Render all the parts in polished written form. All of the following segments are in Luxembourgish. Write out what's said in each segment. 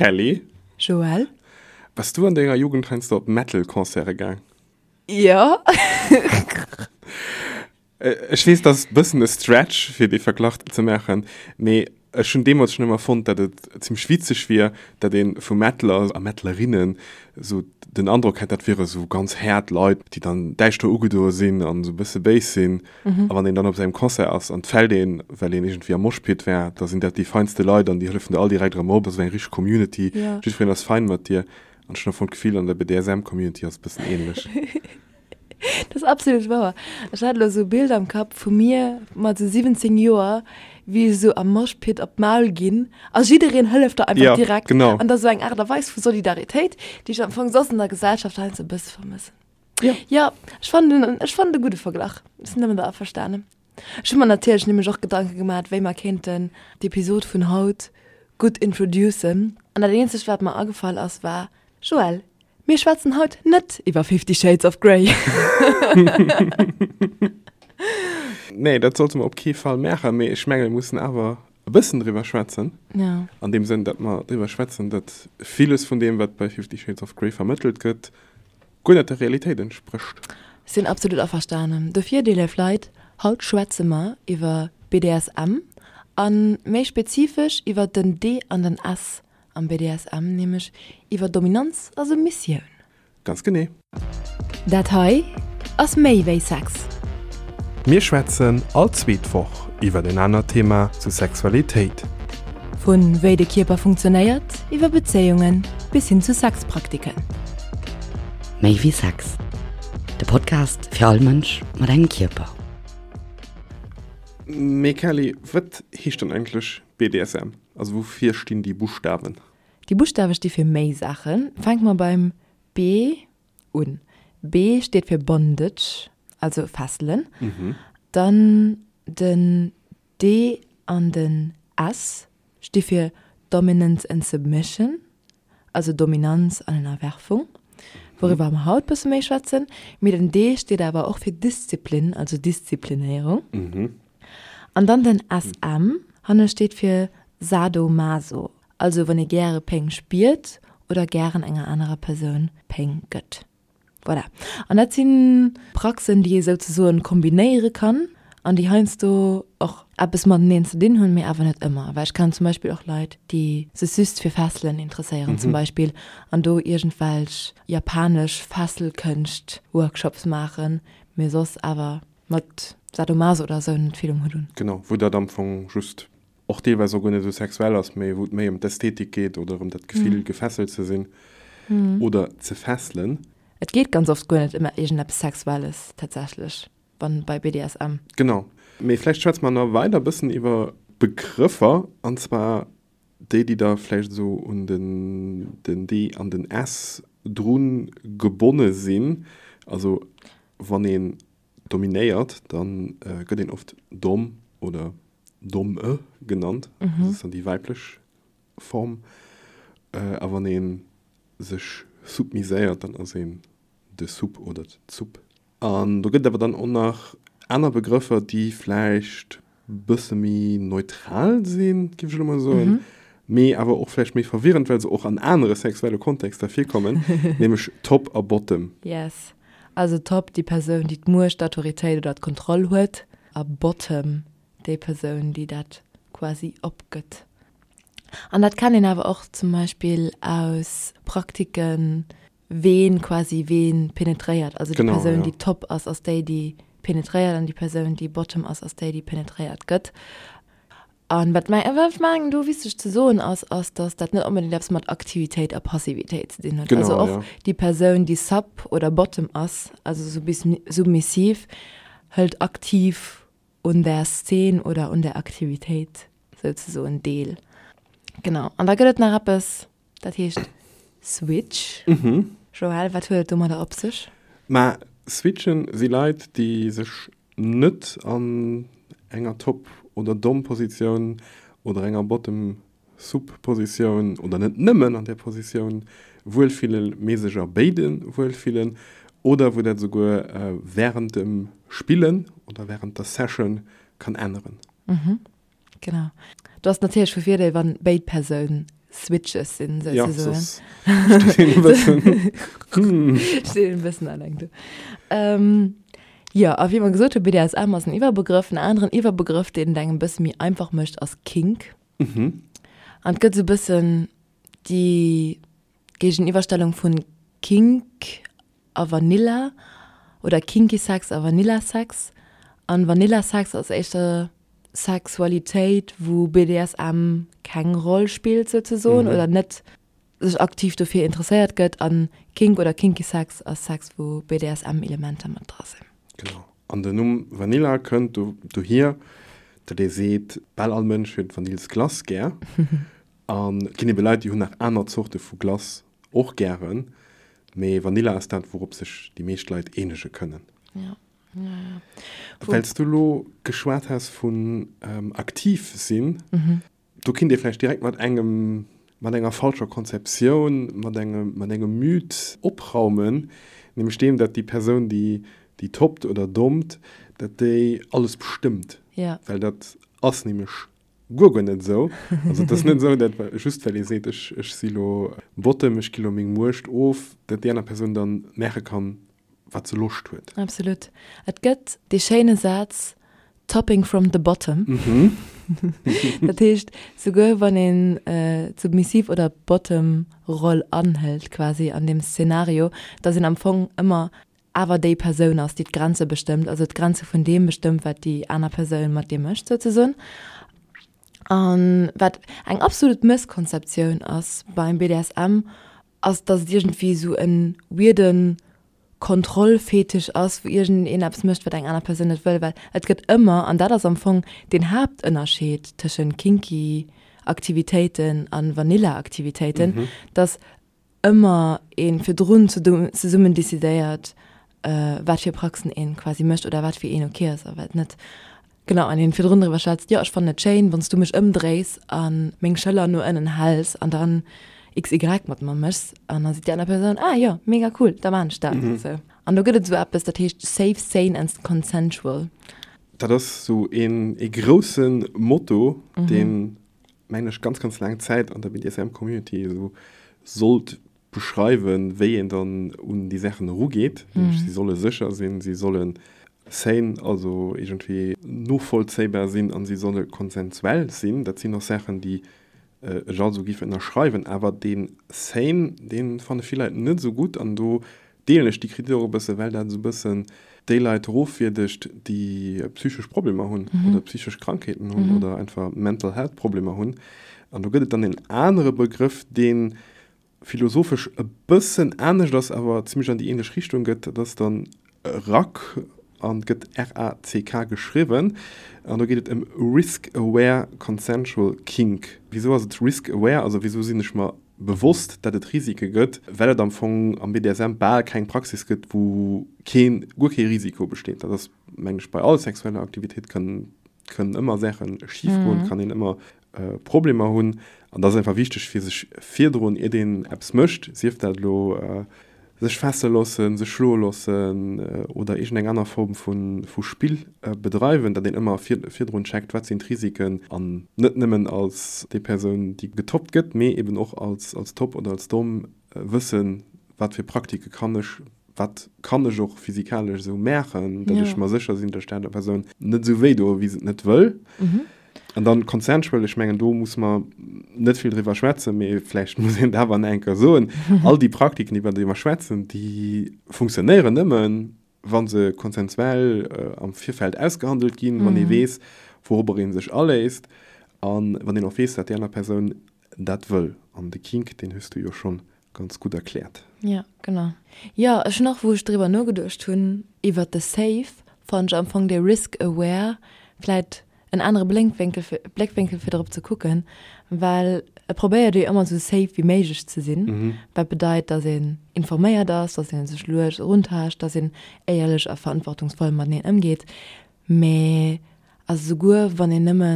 Kelly. Joël. Bass du an denger Jugend heiansdo op Metal-Concerte gaang? Jo. Ech weess, dat ass e bëssen e Stretch, fir dee Verglach ze maachen, mee ech hunn deemools schonn ëmmer fonnt, datt et zimmlech witzeg wier, datt ee vu Metaler a Metalerinnen esou den Androck hätt, dat wiere sou ganz haart Leit, déi dann däischter ugedoe sinn an esou e bësse béis sinn. A wann een dann op esou engem Concert ass an et fält een, well een iergendwéi am Moshpit war, da sinn dat déi feinste Leit an déi hëllefen der all direkt erëm op. Esou eng richteg Community, jiddwereen ass fein mat dir. An ech hunn am Fong d'Gefill, an der BDSM-Community ass et e bëssen änlech. Dat ass absolut wouer. Ech hat elo esou e Bild am Kapp vu mir mat esou 17 Joer, wéi ech esou am Moshpit op d'Maul ginn a jiddereen hëlleft der einfach Ja, direkt. genau. An dat ass esou eng Aart a Weis vu Solidaritéit, déi ech am Fong soss an der Gesellschaft heiansdo e bësse vermëssen. Ja. Jo, ech fannen en, ech fannen e gudde Verglach. Ech sinn domadder averstanen. Ech hu mer natierlech nämlech och Gedanke gemaat, wéi mer kéinten d'Episod vun haut gutt introducen. An dat eenzegt, wat mer agefall ass, war, Joël, Mir schwätzen haut net iwwer Fifty Shades of Grey. Nee, dat sollte mer op kee Fall maachen, mee ech menge mir mussen awer e bëssen driwwer schwätzen. Ja. An deem Sënn, datt mer driwwer schwätzen, datt villes vun deem, wat bei Fifty Shades of Grey vermëttelt gëtt, guer net der Realitéit entsprécht. Sinn absolut averstanen. Dofir, déi léif Leit, haut schwätze mer iwwer BDSM a méi spezifesch iwwer den D an den S Am BDSM, nämlech iwwer Dominanz a Submissioun. Ganz genee. Dat hei ass méi wéi Sex. Mir schwätzen all zweet Woch iwwer en anert Thema zu Sexualitéit. Vu wéi de Kierper funktionéiert, iwwer Bezéiungen bis hin zu Sexpraktiken. Méi wéi Sex, de Podcast fir all Mënsch mat engem Kierper. Mee Kelly, wat heescht dann eigentlech BDSM? Also woufir stinn déi Buschtawen? Déi Buschtawe sti fir méi Saachen. Fänke mer beim B un. B steet fir Bondage, also Fesselen. Dann den D an den S sti fir Dominance and Submission, also Dominanz an Ënnerwerfung, wouriwwer mer haut bësse méi schwätzen. Mee den D steet awer och fir Disziplin, also Disziplinéierung. An dann den SM, hanne steet fir Sado-Maso, also wann ee gäre Péng spiert oder gären enger anerer Persoun Péng gëtt. Voilà. An dat si Praxen, déi ee souzesoen kombinéiere kann an déi heiansdo och eppes mateneen ze dinn hunn, mee awer net ëmmer. Well ech kennen zum Beispill och Leit, déi sech just fir Fesselen interesséieren zum Beispill an do iergendwelch japanesch Fesselkënscht-Workshops maachen, mee soss awer mat Sadomaso oder esou net vill um Hutt hunn. Genau, wou dat am Fong just och deelweis och guer net esou sexuell ass, mee wou et méi ëm d'Ästhetik geet oder ëm dat Gefill, gefesselt ze sinn oder ze fesselen. Et geet ganz oft guer net ëm iergendeppes Sexuelles tatsächlech, wann bei BDSM. Genau. Mee vläicht schwätze mer nach weider e bëssen iwwer Begrëffer, an zwar déi, déi da vläicht esou un den den D an den S dru gebonne sinn. Also wann een dominéiert, da gëtt een oft Dom oder Domme genannt, dat ass dann déi weiblech Form. A wann ee sech submiséiert, dann ass een de Sub oder d'Sub. An do gëtt et awer dann och nach aner Begrëffer, déi vläicht bësse méi neutral sinn, géif ech elo mol soen, mee awer och vläicht méi verwirrend, well se och an anere sexuelle Kontexter virkommen, nämlech Top a Bottom. Yes. Also Top, déi Persoun, déi d'Muecht, d'Autoritéit oder d'Kontroll huet, a Bottom, déi Persoun, déi dat quasi opgëtt. An dat kennt een awer och zum Beispill aus Praktiken, ween quasi ween penetréiert. Also déi Persoun, déi Top ass, ass déi, déi penetréiert, an déi Persoun, déi Bottom ass, ass déi, déi penetréiert gëtt. An wat meng, wat ech mengen do wichteg ze soen ass, ass, datt dat net onbedéngt eppes mat Aktivitéit a Passivitéit ze dinn huet. Also och déi Persoun, déi Sub oder Bottom ass, also submissiv, hëlt aktiv un der Szen oder un der Aktivitéit souzesoen deel. Genau. An da gëtt et nach eppes, dat heescht Switch. Joël, wat huet et domadder op sech? Ma Switchen si Leit, déi sech net an enger Top oder Dom-Positioun oder enger Bottom-Sub-Positioun oder net nëmmen an där Positioun wuelfillen, mee sech a béide wuelfillen oder wou dat esouguer wärend dem Spillen oder wärend der Session kann änneren. Genau. Do ass natierlech vu Virdeel, wann béid Persoun. Switches sinn, Ja, souzesoen. soss steet een e bëssen, hm. Steet een e bëssen alleng do. Ähm, jo, a wéi mer gesot hunn, BDSM ass en Iwwerbegrëff. En aneren Iwwerbegrëff, deen et engem e bësse méi einfach mécht, ass Kink. An et gëtt esou e bëssen déi Géigeniwwerstellung vun Kink a Vanilla oder Kinky Sex a Vanilla Sex. An Vanilla Sex ass éischter Sexualitéit, wou BDSM keng Roll spillt souzesoen oder net sech aktiv dofir interesséiert gëtt. An Kink oder Kinky Sex ass Sex, wou BDSM-Elementer mat dra sinn. Genau. An den Numm Vanilla kënnt dohier, datt ee seet, bal all Mënsch huet Vanillsglace gär. An et ginn ebe Leit, déi hunn nach aner Zorte vu Glace och gären, mee Vanilla ass dat, wourop sech déi meescht Leit eenege kënnen. Ja, ja, ja. Well s du elo geschwat has vun aktiv sinn, do kinnt ee vläicht direkt mat engem, mat enger falscher Konzeptioun, mat engem, mat engem Mythe opraumen, nämlech deem, datt déi Persoun, déi, déi toppt oder dompt, datt déi alles bestëmmt. Ja. Well dat ass nämlech Guer guer net esou. Also et ass net esou, dat just well ee seet, ech ech si lo Bottom, ech gi lo meng Muecht of, dat déi aner Persoun dann maache kann, wat se Loscht huet. Absolut. Et gëtt dee schéine Saz Topping from the bottom. Dat heescht, souguer wann een d'Submissiv oder d'Bottom-Roll anhëlt quasi an deem Szenario, dass een am Fong ëmmer awer déi Persoun ass, déi d'Grenze bestëmmt, also d'Grenze vun deem bestëmmt, wat déi aner Persoun mat dir mécht souzesoen. A wat eng absolut Mësskonzeptioun ass beim BDSM, ass, datt et iergendwéi esou e weirde Kontrollfetisch ass, wou iergendeen eppes mécht, wat eng aner Persoun net wëll, well et gëtt ëmmer, an dat ass am Fong deen Haaptënnerscheed tëschent kinky Aktivitéiten a Vanilla Aktivitéiten, datt ëmmer ee virdrun zesummen decidéiert, wat fir Praxen een quasi mécht oder wat fir een ok ass a wat net. Genau, an een virdrun driwwer schwätzt, jo ech fannen et schéin, wann s du mech ëmdréis a meng Schëller no ënnen häls an dann XY mat mer méchs. An da seet déi aner Persoun, ah jo, mega cool, da maan ech dat. Sou. An do gëtt et esou eppes, dat heescht safe, sane and consensual. Dat ass esou een ee grousse Motto, deen mengen ech, ganz, ganz laang Zäit an der BDSM-Community esou sollt beschreiwen, wéi een dann un déi Saachen erugeet. Nämlech, si solle sécher sinn, si solle sane, also iergendwéi novollzéibar sinn an si solle konsensuell sinn. Dat sinn och Saachen, déi ech alt esou géif ënnerschreiwen. Awer dee sane, dee fanne vill Leit net esou gutt an do deelen ech déi Kritik och e bësse, well dat esou e bëssen déi Leit erofwierdegt, déi psychesch Problemer hunn oder psychesch Krankheeten hunn oder einfach Mental Health Problemer hunn. An do gëtt et dann en anere Begrëff, dee philosophesch e bëssen anescht ass, awer zimmlech an déi ähnlech Richtung gëtt, dat ass dann RACK an gëtt R-A-C-K geschriwwen. An do geet et ëm Risk Aware Consensual Kink. Wisou ass et Risk Aware? Also wisou sinn ech mer bewosst, datt et Risike gëtt, well et am Fong am BDSM bal keng Praxis gëtt, wou keen, guer kee Risiko besteet. Dat ass, mengen ech, bei all sexueller Aktivitéit kënnen, kënnen ëmmer Saache schif goen, kann een ëmmer Problemer hunn. An da ass einfach wichteg, fir sech virdrun, iert een eppes mécht, sief dat elo Sech fesse loossen, sech schloe loossen oder iergendeng aner Form vu Spill bedreiwen, datt een ëmmer virdrun checkt, wat sinn d'Risiken an net nëmmen als déi Persoun, déi getoppt gëtt, mee eben och als Top oder als Dom wëssen, wat fir Praktike kann ech, wat kann ech och physikalesch esou maachen, datt ech mer sécher sinn, datt ech der anerer Persoun net esou wéi doe wéi se et net wëll. An dann consensual, ech mengen, do muss mer net vill driwwer schwätzen, mee vläicht muss een et awer nach eng Kéier soen, All déi Praktiken, iwwer déi mer schwätzen, déi funktionéieren nëmmen, wa se konsensuell am Virfeld ausgehandelt ginn, wann ee weess, wourobber ee sech aléisst a wann een och weess, datt déi aner Persoun dat wëll. An de Kink, deen hues du jo schonn Ganz gutt erkläert. Ja, genau. Jo, ech hunn och, wou ech driwwer nogeduecht hunn, iwwert de Safe, fannen ech am Fong dee Risk Aware vläit en anere Blénkwénkel fir, Bléckwénkel fir drop ze kucken, well e probéiert jo ëmmer esou safe wéi méiglech ze sinn, wat bedeit, dass een informéiert ass, dass ee sech lues eruntaascht, dass een éierlech a verantwortungsvoll mateneen ëmgeet. Mee also souguer wann een nëmme.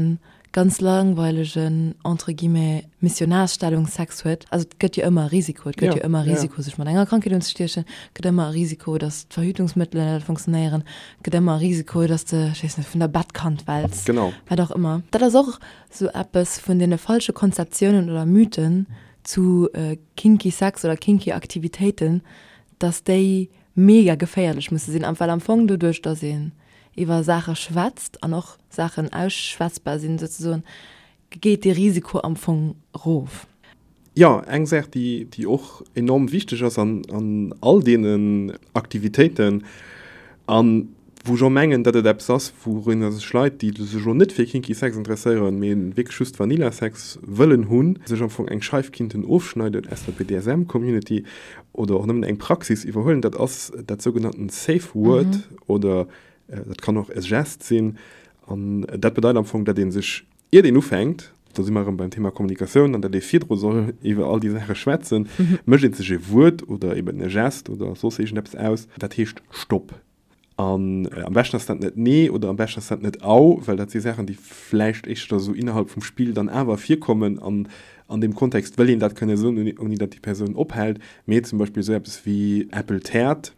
ganz langweilegen, entre guillemets, Missionarsstellungssex huet. Also et gëtt jo ëmmer e Risiko, et gëtt jo ëmmer e Risiko sech mat enger Krankheet unzestiechen, et gëtt ëmmer e Risiko, datt d'Verhütungsmëttelen net funktionéieren, et gëtt ëmmer e Risiko, datt s de, ech weess net, vun der Bettkant fäls, wat och ëmmer. Dat ass och esou eppes vun deene falsche Konzeptiounen oder Mythen zu kinky Sex oder kinky Aktivitéiten, datt déi mega geféierlech musse sinn, well am Fong doduerch, datt een iwwer Saache schwätzt an och Saachen ausschwätzbar sinn souzesoen, geet dee Risiko am Fong erof. Jo, eng Saach, déi, déi och enorm wichteg ass an, an all deenen Aktivitéiten an wou ech och mengen, datt et eppes ass, wourunner sech Leit, déi sech elo net fir kinky Sex interesséieren, mee wierklech just Vanilla Sex wëllen hunn, sech am Fong eng Scheif kinnten ofschneiden aus der BDSM-Community oder och nëmmen eng Praxis iwwerhuelen, dat ass dat sougenannten Safe Word oder dat kann och e Gest sinn. An dat bedeit am Fong, datt ee sech, iert een ufänkt, do si mer erëm beim Thema Kommunikatioun an datt ee virdru soll iwwer all déi Saache schwätzen, mécht ee sech e Wuert oder eben e Gest oder soss iergendeppes aus, dat heescht Stopp. An am beschten ass dat net Nee oder am beschten ass dat net Au, well dat si Saachen, déi vläicht éischter esou innerhalb vum Spill dann awer virkommen an an deem Kontext wëll een dat kënne soen, ouni datt déi Persoun ophält. Mee zum Beispill esou eppes wéi Äppel täert,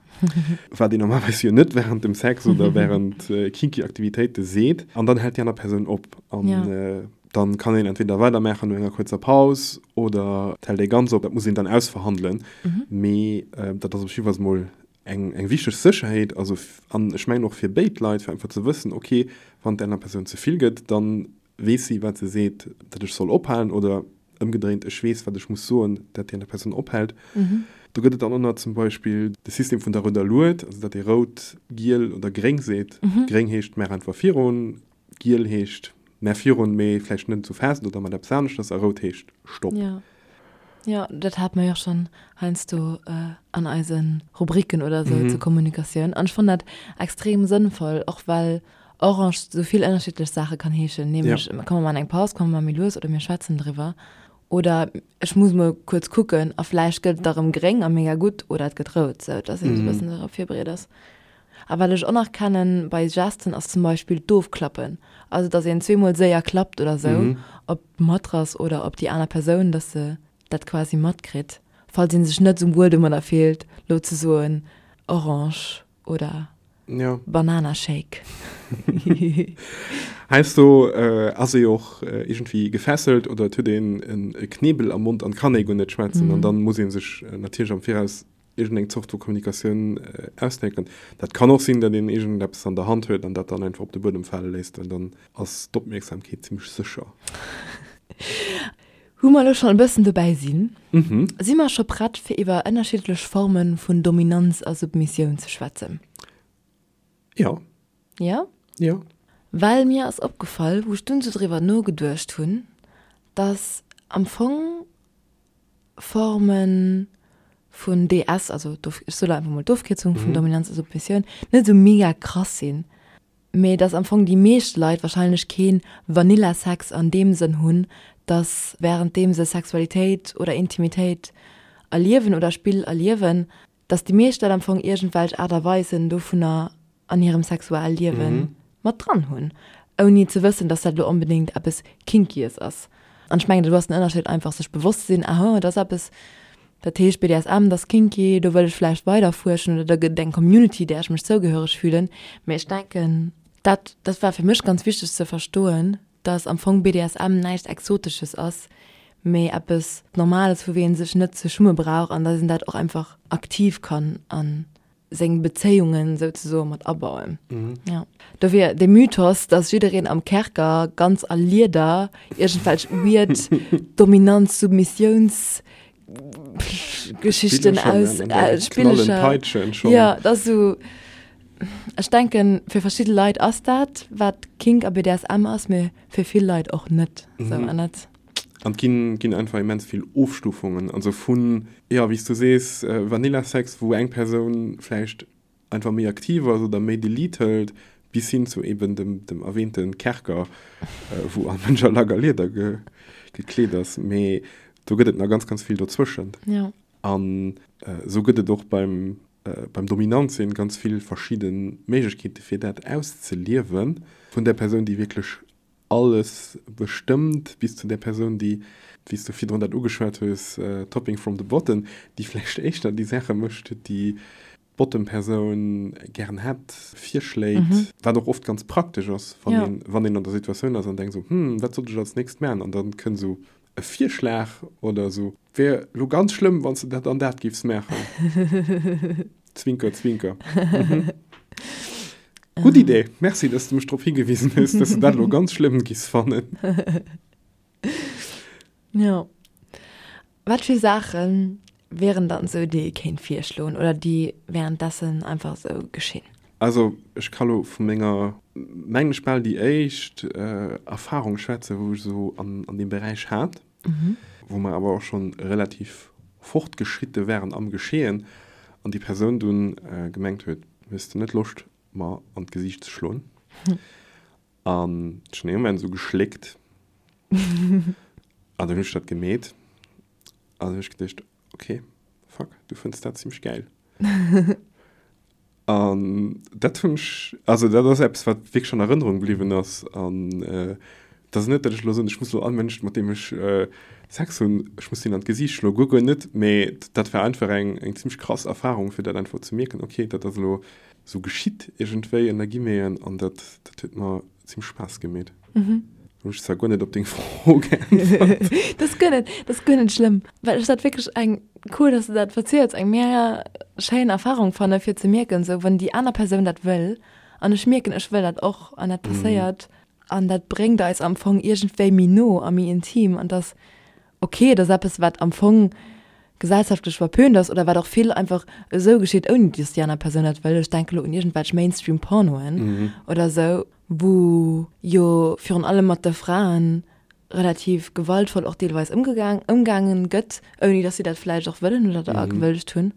wat een normalerweis jo net wärend dem Sex oder wärend kinky Aktivitéite seet, an dann hält déi aner Persoun op. An dann kann een entweder weidermaachen no enger kuerzer Paus oder et hält ee ganz op. Dat muss een dann ausverhandelen. Mee dat ass op jiddwer Fall mol eng, eng wichteg Sécherheet, also an ech mengen och fir béid Leit, fir einfach ze wëssen, ok, wann der aner Persoun ze vill gëtt, da weess si, wat se seet, datt ech soll ophalen oder ëmgedréint, ech weess, wat ech muss soen, datt déi aner Persoun ophält. Do gëtt et dann och nach zum Beispill de System vun der rouder Lued, also datt ee rout, giel oder gréng seet. Gréng heescht, maach einfach virun, giel heescht, maach virun, mee vläicht net esou fest oder mat eppes aneschters a rout heescht, stopp. Jo, dat hate mer jo och schonn heiansdo an eise Rubriken oder esou zur Kommunikatioun. An ech fannen dat extrem sënnvoll, och well Orange esou vill ënnerschiddlech Saache kann heeschen, nämlech komm mer maachen eng Paus, komm mer maache méi lues oder mir schwätzen driwwer oder ech muss mol kuerz kucken a vläicht gëtt et da rëm gréng a mega gutt oder et gëtt rout, sou dass een esou e bëssen dorop virbereet ass. A wat ech och nach kennen bei Gesten ass zum Beispill d'Ofklappen, also dass een zweemol séier klappt oder sou op d'Matrass oder op déi aner Persoun, dass se dat quasi matkritt, falls ee sech net sou wuel domadder fillt lo ze soen Orange oder Banana Shake. Heiansdo ass ee jo och iergendwéi gefesselt oder et huet een e Knebel am Mond an kann ee guer net schwätzen an dann muss ee sech natierlech am Viraus iergendeng Zort vu Kommunikatioun ausdenken. Dat kann och sinn, datt een iergendeppes an der Hand huet an dat dann einfach op de Buedem fale léisst, well dann ass d'Opmierksamkeet zimmlech sécher. Wou mer elo schonn e bëssen dobäi sinn, si mer scho prett fir iwwer ënnerschiddlech Forme vun Dominanz a Submissioun ze schwätzen? Jo. Jo? Jo. Well mir ass opgefall, wou ech dunn esou driwwer nogeduecht hunn, datt am Fong Forme vun DS, also ech soe lo einfach mol d'Ofkierzung vun Dominanz a Submissioun, net esou mega krass sinn, mee dass am Fong déi meescht Leit wahrscheinlech kee Vanilla-Sex an deem Sënn hunn, dass wärenddeem se Sexualitéit oder Intimitéit erliewen oder Spill erliewen, dass déi meescht Leit am Fong iergendwelch Aart a Weisen dovunner an hirem Sexualliewe mat dran hunn, ouni ze wëssen, dass dat elo onbedéngt eppes Kinkyes ass. An ech mengen, do ass den Ënnerscheed einfach, sech bewosst ze sinn, aha, dat ass eppes, dat heescht BDSM, dat ass kinky, do wëll ech vläicht weider fuerschen oder do gëtt et eng Community, där ech mech zougehöreg fühlen. Mee ech denken, dat, dat war fir mech ganz wichteg ze verstoen, dass am Fong BDSM näischt Exotesches ass, mee eppes Normales, wou ee sech net ze schumme brauch an dass een dat och einfach aktiv kann a seng Bezéiungen souzesoe mat abauen. Jo. Dofir de Mythos, dass jiddereen am Kerker ganz a Lieder iergendwelch weird Dominanz-Submissiouns Geschichten aus äh, Spillecher. Ja, dat ass sou, ech denken, fir verschidde Leit ass dat, wat Kink a BDSM ass, mee fir vill Leit och net. Sou, an dat. An et ginn, ginn einfach immens vill Ofstufungen, also vun, jo, wéi s du sees, Vanilla-Sex, wou eng Persoun vläicht einfach méi aktiv ass oder méi de Lead hëlt, bis hin zu eben dem, dem erwähnte Kerker, wou all Mënsch a Lack a Lieder ge, gekleet ass. Mee do gëtt et nach ganz, ganz vill dozwëschent. Ja. An esou gëtt et och beim, beim Dominant sinn ganz vill verschidde Méiglechkeete fir dat auszeliewen, vun där Persoun, déi wierklech. Alles bestëmmt, bis zu där Persoun, déi, wéi s du virdrun dat ugeschwat hues, topping from the bottom, déi vläicht éischter déi Saache mécht, déi d'Bottom-Persoun gären hätt, virschléit, wat och oft ganz praktesch ass, wann een, wann een an der Situatioun ass an denkt esou, Hm, wat sollt ech als nächst maachen? An dann kënnt esou e Virschlag oder esou, Wär elo ganz schlëmm, wann s de dat an dat géifs maachen. Zwinker, zwinker. Gutt Idee. Merci, dass du mech drop higewisen hues, dass du dat elo ganz schlëmm giss fannen. Jo. Wat fir Saache wieren dann esou, déi ee kéint virschloen oder déi währenddessen einfach esou geschinn? Also ech ka lo vu menger, mengen ech, bal déi éischt Erfahrung schwätzen, wou ech esou an deem Beräich hat. wou mer awer och schonn relativ fortgeschritte waren am Geschehen an déi Persoun dunn gemengt huet, Hues de net Loscht mer an d'Gesiicht ze schloen? An ech hunn dee Moment esou geschléckt an dann hunn ech dat gemeet an dann hunn ech geduecht, Ok, fuck, du fënns dat zimmlech gäil. An dat hunn ech, also dat ass eppes, wat wierklech an Erënnerung bliwwen ass. An et ass net, datt ech elo soen, ech muss elo all Mënsch, mat deem ech Sex hunn, ech muss deen an d'Gesiicht schloen, guer, guer net. Mee dat war einfach eng, eng zimmlech krass Erfarung, fir dat einfach ze mierken, okay, dat ass elo esou geschitt iergendwéi ënner Guillemeten an dat, dat huet mer zimmlech Spaass gemeet. Hunn ech zwar guer net op deng Fro geäntwert. Dat ass guer net, dat ass guer net schlëmm, well ech dat wierklech eng, cool, dass de dat verziels, eng mega schéin Erfahrung fanne fir ze mierken, esou wann déi aner Persoun dat wëll an ech mierken, ech wëll dat och an dat passéiert an dat bréngt eis am Fong iergendwéi méi no a méi intim an dass ok, et ass eppes wat am Fong gesellschaftlech verpönt ass oder wat och vill einfach esou geschitt, ouni dass déi aner Persoun dat wëll. Ech denke lo un iergendwelch Mainstream-Pornoen oder esou. wou jo virun allem mat de Fraen relativ gewaltvoll och deelweis ëmgegaang, ëmgaangen gëtt, ouni dass si dat vläicht och wëllen oder da gewëllt hunn,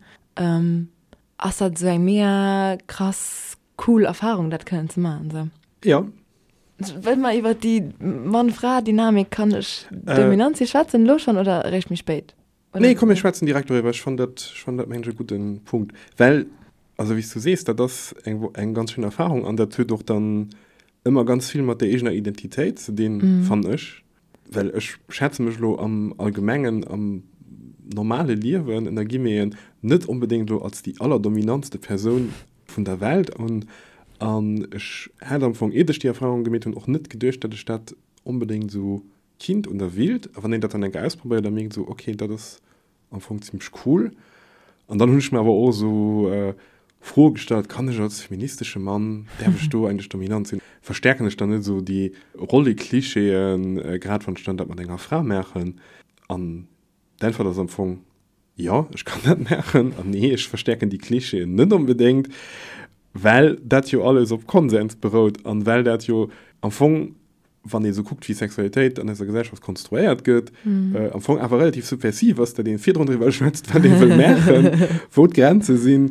ass dat esou eng mega krass cool Erfahrung, dat kënnen ze maachen esou. Jo. Wëlle mer iwwer déi Mann-Fra-Dynamik, kann ech dominant si schwätzen elo schonn oder eréischt méi spéit? Nee, komm mir schwätzen direkt doriwwer. Ech fannen dat, ech fannen dat mengen ech e gudden Punkt. Well, also wéi s du sees, dat ass eng, eng ganz schéin Erfahrung an dat huet och dann ëmmer ganz vill mat der eegener Identitéit ze dinn, fannen ech. Well ech schätze mech elo am Allgemengen, am normale Liewen, ënner Guillemeten, net onbedéngt elo als déi allerdominantste Persoun vun der Welt un. An ech hat am Fong, iert ech déi Erfahrung gemeet hunn, och net geduecht, datt ech dat onbedéngt esou Kind un der Wild, a wann een dat dann eng Kéier ausprobéiert, da mierkt esou, ok, dat ass am Fong zimmlech cool. An dann hunn ech mir awer och esou Froe gestallt, kann ech als feministesche Mann, däerf ech do eigentlech dominant sinn? Verstäerken ech dann net esou déi Rolleklischeeën, grad wann ech dann dat mat enger Fra maachen? An d'Äntwert ass am Fong, jo, ech kann dat maachen, an nee, ech verstäerken déi Klischeeën net onbedéngt, well dat jo alles op Konsens berout an well dat jo am Fong wann ee sou kuckt, wéi Sexualitéit an eiser Gesellschaft konstruéiert gëtt, am Fong awer relativ subversiv ass, datt ee virdrun driwwer schwätzt, wat ee wëll maachen, wou d'Grenze sinn,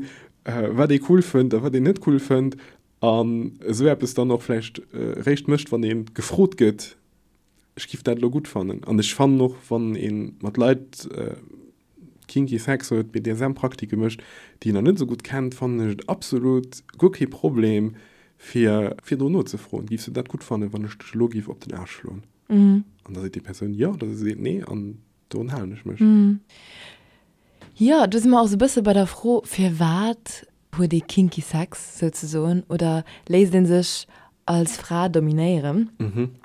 wat ee cool fënnt a wat een net cool fënnt, an esou eppes dann och vläicht réischt mécht, wann ee gefrot gëtt, ech giff dat elo gutt fannen. An ech fannen och, wann ee mat Leit kinky Sex huet, BDSM-Praktike mécht, déi een nach net esou gutt kennt, fannen ech et absolut guer kee Problem, fir virdrun nozefroen, Giffs du dat gutt fannen, wann ech dech elo giff op den Aarsch schloen? An da seet déi Persoun jo oder se seet nee an dorun halen ech mech. Jo, do si mer och esou e bësse bei der Fro, firwat huet ee kinky Sex souzesoen oder léisst ee sech als Fra dominéieren?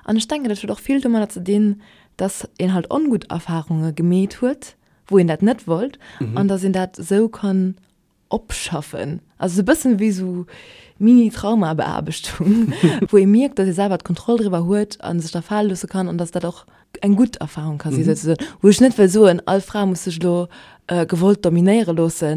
An ech denken, dat huet och vill domadder ze dinn, dass een halt ongutt Erfarunge gemeet huet, wou een dat net wollt an dass een dat esou kann opschaffen. Also esou e bëssen wéi esou Mini-Traumabeaarbechtung, wou ee mierkt, dass ee selwer d'Kontroll driwwer huet a sech da fale loosse kann an dass dat och eng gutt Erfahrung ka si souzesoen. Wou ech net wëll soen, all Fra muss sech elo gewollt dominéiere loosse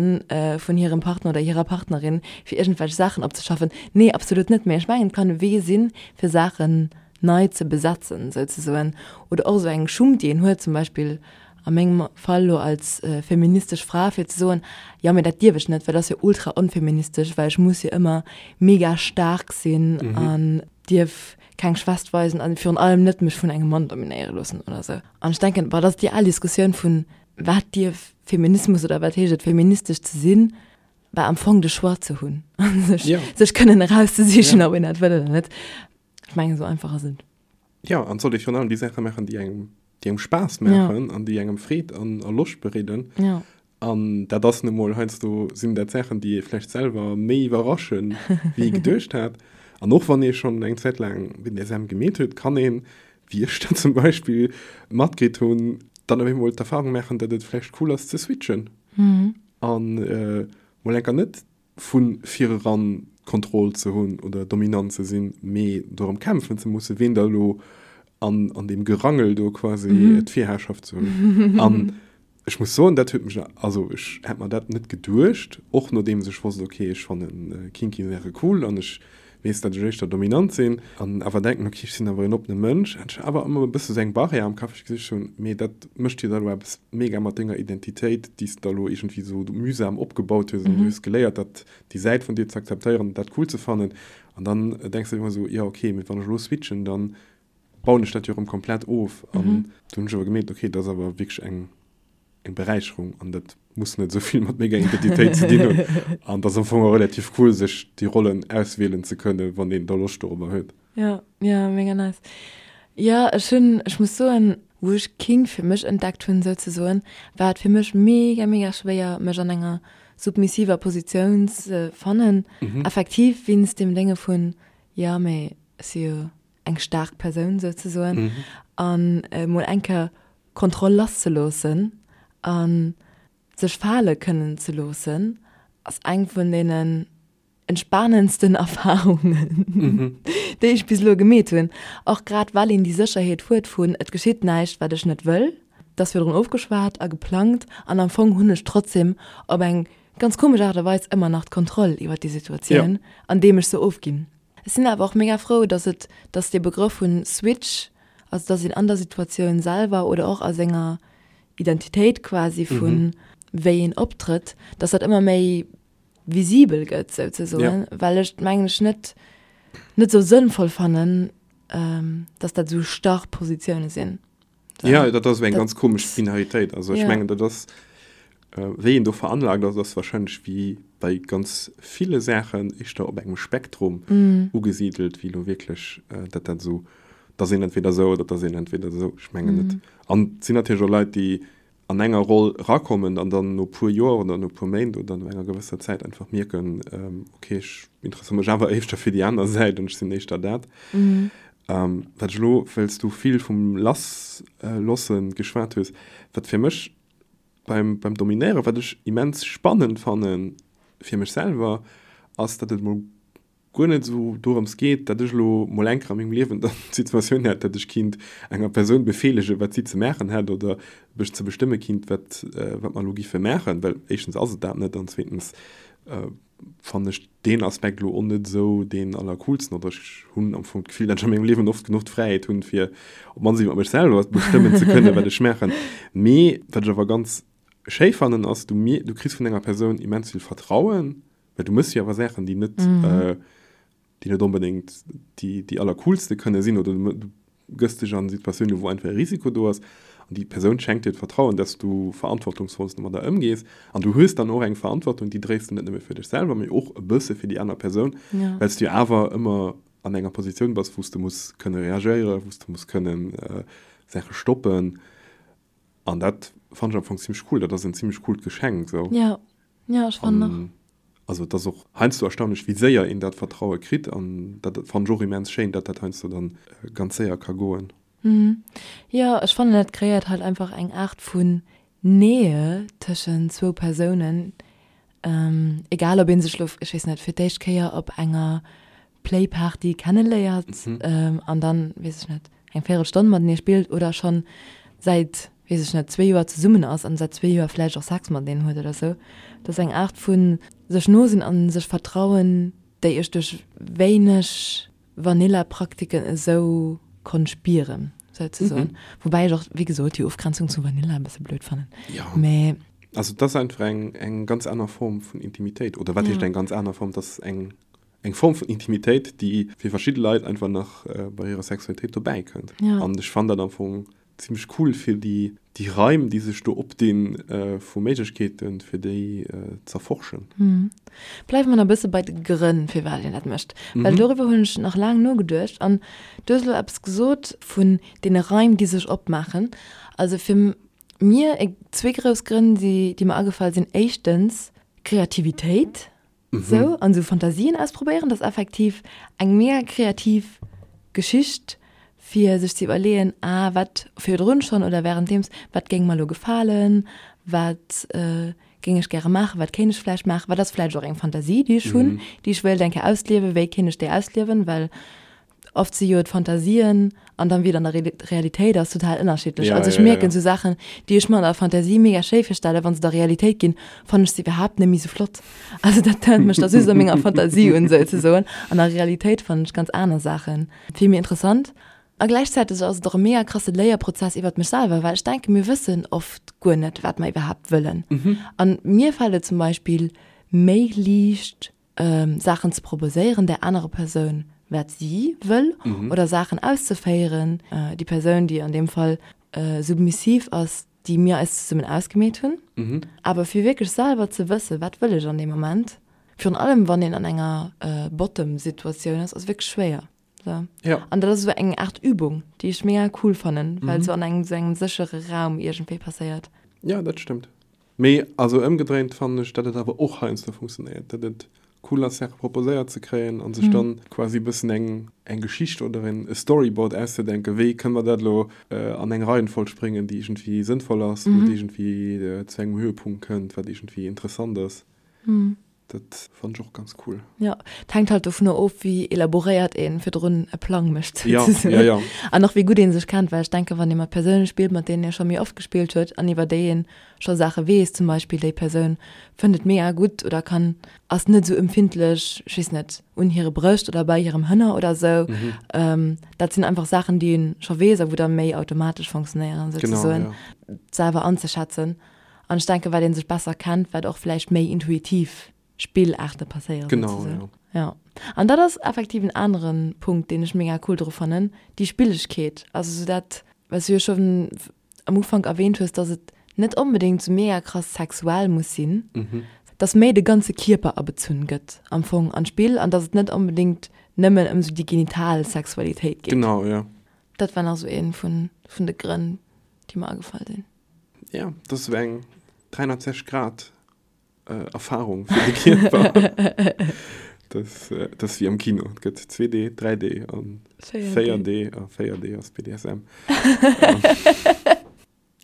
vun hirem Partner oder hirer Partnerin, fir iergendwelch Saachen opzeschaffen. Nee, absolut net. Mee ech mengen, et kann e Wee sinn, fir Saachen nei ze besetzen souzesoen. Oder och esou eng Schummt, déi een huet, zum Beispill a mengem Fall elo als feministesch Fra, fir ze soen, jo mee dat dierf ech net, well dat ass jo ultra onfeministesch, well ech muss jo ëmmer mega staark sinn an dierf keng Schwächt weisen an virun allem net mech vun engem Mann dominéiere loossen oder sou. An ech denken, bon, dat ass déi al Diskussioun vun, wat dierf Feminismus oder wat heescht et feministesch ze sinn, bah am Fong de Choix ze hunn a sech, sech kënnen erauszesichen, ob een dat wëll oder net. Ech mengen, esou einfach ass et. Jo, an et sollt ee virun allem déi Saache maachen, déi engem, déi engem Spaass maachen an déi engem Freed an a Loscht bereeden. Jo. An dat ass nu mol heiansdo sinn dat Saachen, déi ee vläicht selwer méi iwwerraschen, wéi ee geduecht hat. An och wann ee schonn eng Zäit laang BDSM gemeet huet, kann een, wéi ech dat zum Beispill matkritt hunn, dann op eemol d'Erfahrung maachen, datt et vläicht cool ass ze switchen an mol enker net vu vireran d'Kontroll ze hunn oder dominant ze sinn, mee dorëm kämpfen ze mussen, ween da elo an, an deem Gerangel do quasi d'Virherrschaft ze hunn. An ech muss soen, dat huet mech, also ech hätt mer dat net geduecht, och nodeems ech wosst, okay, ech fanne kinky Saache cool an ech weess, datt ech éischter dominant sinn, an awer denken, okay, ech sinn awer en oppene Mënsch, hat ech awer ëmmer e bësse sou eng Barrière am Kapp, wou ech gesicht hunn, mee dat mécht jo da elo eppes mega mat denger Identitéit, déi s de da elo iergendwéi sou mühsam opgebaut hues an du hues geléiert, dat, déi Säit vun dir ze akzeptéieren an dat cool ze fannen. An dann denks de ëmmer sou, jo okay, mee wann ech elo switchen, dann bauen ech dat jo erëm komplett of. An du hunn ech awer gemierkt, okay, dat ass awer wierklech eng eng Beräicherung an dat muss net esou vill mat menger Identitéit ze dinn hunn. An dat ass am Fong och relativ cool, sech déi Rollen auswielen ze kënnen, wann een da Loscht dorobber huet. Jo, jo, mega nice. Jo, ech hunn, ech muss soen, wou ech Kink fir mech entdeckt hunn souzesoen, war et fir mech mega, mega schwéier, mech an enger submissiver Positioun ze fannen, effektiv wéinst deem Dénge vun, jo, mee ech si jo eng staark Persoun souzesoen, an emol eng Kéier Kontroll lasszeloossen a sech fale kënnen ze loossen, ass eng vun deenen entspanendsten Erfarungen, déi ech bis elo gemeet hunn. Och grad well een déi Sécherheet huet vun, et geschitt näischt, wat ech net wëll. Et ass virdrun ofgeschwat a geplangt an am Fong hunn ech trotzdem op eng ganz komesch Aart a Weis ëmmer nach d'Kontroll iwwer déi Situatioun, andeem ech se ofginn. Ech sinn awer och mega frou, dass et, dass dee Begrëff vun Switch, also dass een an der Situatioun selwer oder och a senger Identitéit quasi vun wéi een optrëtt, dass dat ëmmer méi visibel gëtt souzesoen, well ech mengen ech net net esou sënnvoll fannen, dass dat esou starr Positioune sinn. Ja, dat ass eng ganz komesch Binaritéit. Also ech mengen, dat ass wéi een do veranlagt ass, ass wahrscheinlech wéi bei ganz ville Saachen éischter op engem Spektrum ugesidelt, wéi elo wierklech dat dat esou, dass een entweder esou oder dass een entweder esou. Ech mengen net. An et sinn natierlech och Leit, déi an enger Roll erakommen an dann no puer Joer oder no puer Méint oder no enger gewësser Zäit einfach mierken, okay, ech interesséiere mech awer éischter fir déi aner Säit an ech sinn éischter dat. Wat ech elo, well s du vill vum Lasslosse geschwat hues, wat fir mech beim, beim Dominéieren, wat ech immens spannend fanne fir mech selwer, ass, datt et mol guer net esou dorëms geet, datt ech elo mol eng Kéier a mengem Liewen dann d'Situatioun hätt, datt ech kinnt enger Persoun befeelegen, wat si ze maachen hätt oder mech ze bestëmme kinnt, wat, wat mer elo giffe maachen, well éischtens ass et dat net an zweetens fannen ech deen Aspekt elo och net esou deen allercoolsten oder ech hunn am Fong d'Gefill, datt ech a mengem Liewen oft genuch d'Fräiheet hunn, fir op d'mannst iwwer mech selwer bestëmmen ze kënnen, wat ech maachen. Mee wat ech awer ganz schéi fannen, ass, du du kriss vun enger Persoun immens vill Vertrauen, well du méchs jo awer Saachen, déi net, déi net onbedéngt déi, déi allercoolste kënne sinn oder du gëss dech an Situatiounen, wou einfach e Risiko do ass an déi Persoun schenkt dir d'Vertrauen, dass du verantwortungsvoll domadder ëmgees an du hues dann och eng Verantwortung, déi dréis de net nëmme fir dech selwer, mee och e bësse fir déi aner Persoun, well s du jo awer ëmmer an enger Positioun bass, wou s de muss kënne reagéieren, wou s de muss kënnen Saache stoppen an dat fannen ech am Fong zimmlech cool, dat ass en zimmlech coolt Geschenk esou. Jo, jo, ech fannen och. Also et ass och heiansdo erstaunlech, wéi séier een dat Vertraue kritt an dat fannen ech och immens schéin, datt dat heiansdo dann ganz séier ka goen. Jo, ech fannen dat kreéiert halt einfach eng Aart vun Nähe tëschent zwou Persounen, egal ob ee sech lo, ech weess net, fir d'éischt Kéier op enger Playparty kenneléiert an dann, weess ech net, eng Véierelstonn matenee spillt oder schonn säit, weess ech net, zwee Joer zesummen ass an säit zwee Joer vläicht och Sex mateneen huet oder sou. Dat ass eng Aart vu sech no sinn a sech vertrauen, déi ech duerch wéineg Vanilla-Praktiken esou konnt spieren, souzesoen. Woubäi ech och, wéi gesot, déi Ofgrenzung zu Vanilla e bësse blöd fannen. Jo. Mä. Also et ass einfach eng, eng ganz aner Form vun Intimitéit. Oder wat heescht eng ganz aner Form? Et ass eng eng Form vun Intimitéit, déi fir verschidde Leit einfach nach bei hirer Sexualitéit dobäi kënnt. Ja. An ech fannen dat am Fong zimmlech cool fir déi, déi Raim, déi sech do opdinn vu Méiglechkeeten, fir déi z'erforschen. Bleiwe mer nach e bësse bei de Grënn, firwat een dat mécht. Well doriwwer hunn ech nach laang nogeduecht. An du hues elo eppes gesot vun deene Raim, déi sech opmaachen. Also fir mir zwee grouss Grënn, déi mer agefall sinn, Éischtens Kreativitéit. Sou, an sou Fantasien ausprobéieren, dat ass effektiv eng mega kreativ Geschicht, fir sech ze iwwerleeën, ah, wat virdrun schonn oder wärenddeems, wat géing mer elo gefalen, wat géing ech gäre maachen, wat kéint ech vläicht maachen, wat ass vläicht och eng Fantasie, déi ech hunn, déi ech wéilt eng Kéier ausliewen, wéi kéint ech déi ausliewen, well Oft si jo d'Fantasien an dann wéi et an der Realitéit ass total ënnerschiddlech. Ja, also ech ja, mierken ja. sou Saachen, déi ech mer an der Fantasie mega schéi virstellen, wann se da Realitéit ginn, fannen ech se iwwerhaapt net méi sou flott. Also dat tönt mech da just a menger Fantasie un souzesoen. An der Realitéit fannen ech ganz aner Saachen vill méi interessant. A gläichzäiteg ass et och e mega krasse Léierprozess iwwert mech selwer, well ech denken, mir wëssen oft guer net, wat mer iwwerhaapt wëllen. An mir fält et zum Beispill méi liicht, Saachen ze proposéieren där anerer Persoun, wat si wëll, oder Saachen auszeféieren, déi Persoun, déi an deem Fall submissiv ass, déi mir eis zesummen ausgemeet hunn. Awer fir wierklech selwer ze wëssen, wat wëll ech an deem Moment, virun allem wann een an enger Bottom-Situatioun ass, ass wierklech schwéier. So. Ja. An dat ass esou eng Aart Übung, déi ech mega cool fannen, well se an engem esou engem séchere Raum iergendwéi passéiert. Ja, dat stëmmt. Mee also ëmgedréint fannen ech, datt et awer och heiansdo funktionéiert, datt et cool ass, Saache proposéiert ze kréien a sech dann quasi e bëssen eng eng Geschicht oder en e Storyboard auszedenken, wéi kënne mer dat elo an eng Reihenfolg bréngen, déi iergendwéi sënnvoll ass, wou et iergendwéi zu engem Höhepunkt kënnt, wat iergendwéi interessant ass. Dat fannen ech och ganz cool. Jo, et hänkt halt dovunner of, wéi elaboréiert een virdrun e Plang mécht, Ja, souzesoen. ja, ja. An och wéi gutt ee sech kennt, well ech denken, wann ee mat Persoune spillt, mat deenen ee scho méi oft gespillt huet an iwwer déi ee scho Saache weess, zum Beispill déi Persoun fënnt et mega gutt oder kann, ass net esou empfindlech, ech weess net, un hire Brëscht oder bei hirem Hënner oder esou, dat sinn einfach Saachen, déi ee scho weess a wou da méi automatesch fonctionnéieren, souzesoen, Genau, ja. selwer anzeschätzen. An ech denken, wat een sech besser kennt, wat och vläicht méi intuitiv Spillaarte passéieren. Genau, ja. Ja. An dat ass effektiv en anere Punkt, deen ech mega cool dru fannen, déi Spillegkeet. Also sou dat, wat s du jo schonn am Ufank erwähnt hues, dass et net onbedéngt sou mega krass sexuell muss sinn, dass méi de ganze Kierper abezunn gëtt am Fong an d'Spill an dass et net onbedéngt nëmmen ëm sou déi genital Sexualitéit geet. Genau, ja. Dat war nach sou ee vun de Grënn, déi mer agefall sinn. Ja, dat ass eng 360 Grad äh, Erfahrung fir de Kierper. das, äh, das ass wéi am Kino. Et gëtt 2D, 3D an 4D. A 4D ass BDSM.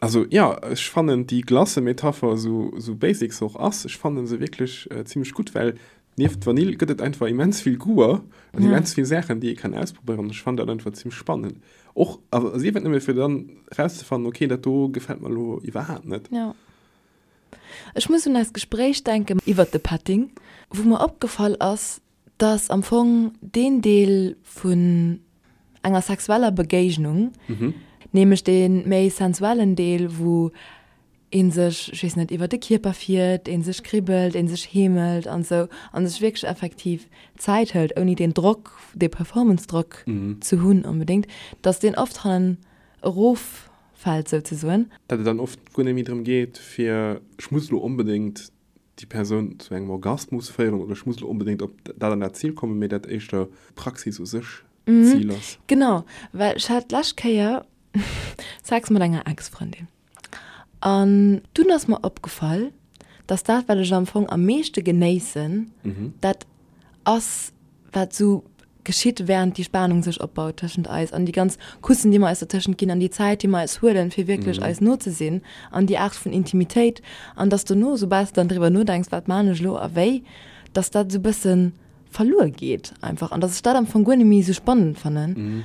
Also ja, ech fannen déi Glace-Metapher, sou, sou basic se och ass, ech fannen se wierklech äh, zimmlech gutt, well nieft Vanill gëtt et einfach immens vill Goûter an ja. immens vill Saachen, déi ee kann ausprobéieren. Ech fannen dat einfach zimmlech spannend. Och, also sief et nëmme fir dann rauszefannen, okay, dat do gefält mer elo iwwerhaapt net. Ja. Ech muss un eist Gespréich denken iwwert de Petting, wou mer opgefall ass, dass am Fong deen Deel vun enger sexueller Begéignung, nämlech dee méi sensuellen Deel, wou ee sech, ech weess net, iwwer de Kierper fiert, ee sech kribbelt, ee sech heemelt an esou, a sech wierklech effektiv Zäit hëlt, ouni deen Drock, dee Performance-Drock ze hunn onbedéngt, dass deen oft hannen eroffält souzesoen. Datt et dann oft guer net méi drëm geet, fir ech muss elo onbedéngt déi Persoun zu engem Orgasmus féieren oder ech muss elo onbedéngt op dat an dat Zil kommen, mee dat éischter d'Praxis u sech d'Zil ass. Genau, well ech hat d'lescht Kéier Sex mat enger Ex-Frëndin an dunn ass mer opgefall, dass dat, wat ech am Fong am meeschte genéissen, dat ass, wat sou geschitt, während déi Spanung sech opbaut tëschent eis an déi ganz Kussen, déi mer eis dertëschent ginn an déi Zäit, déi mer eis huelen, fir wierklech eis no ze sinn an déi Aart vun Intimitéit an dass dono, soubal s de dann driwwer nodenks, wat maan ech elo a wéi, dass dat esou bësse verluer geet einfach an dass ech dat am Fong guer net méi esou spannend fannen.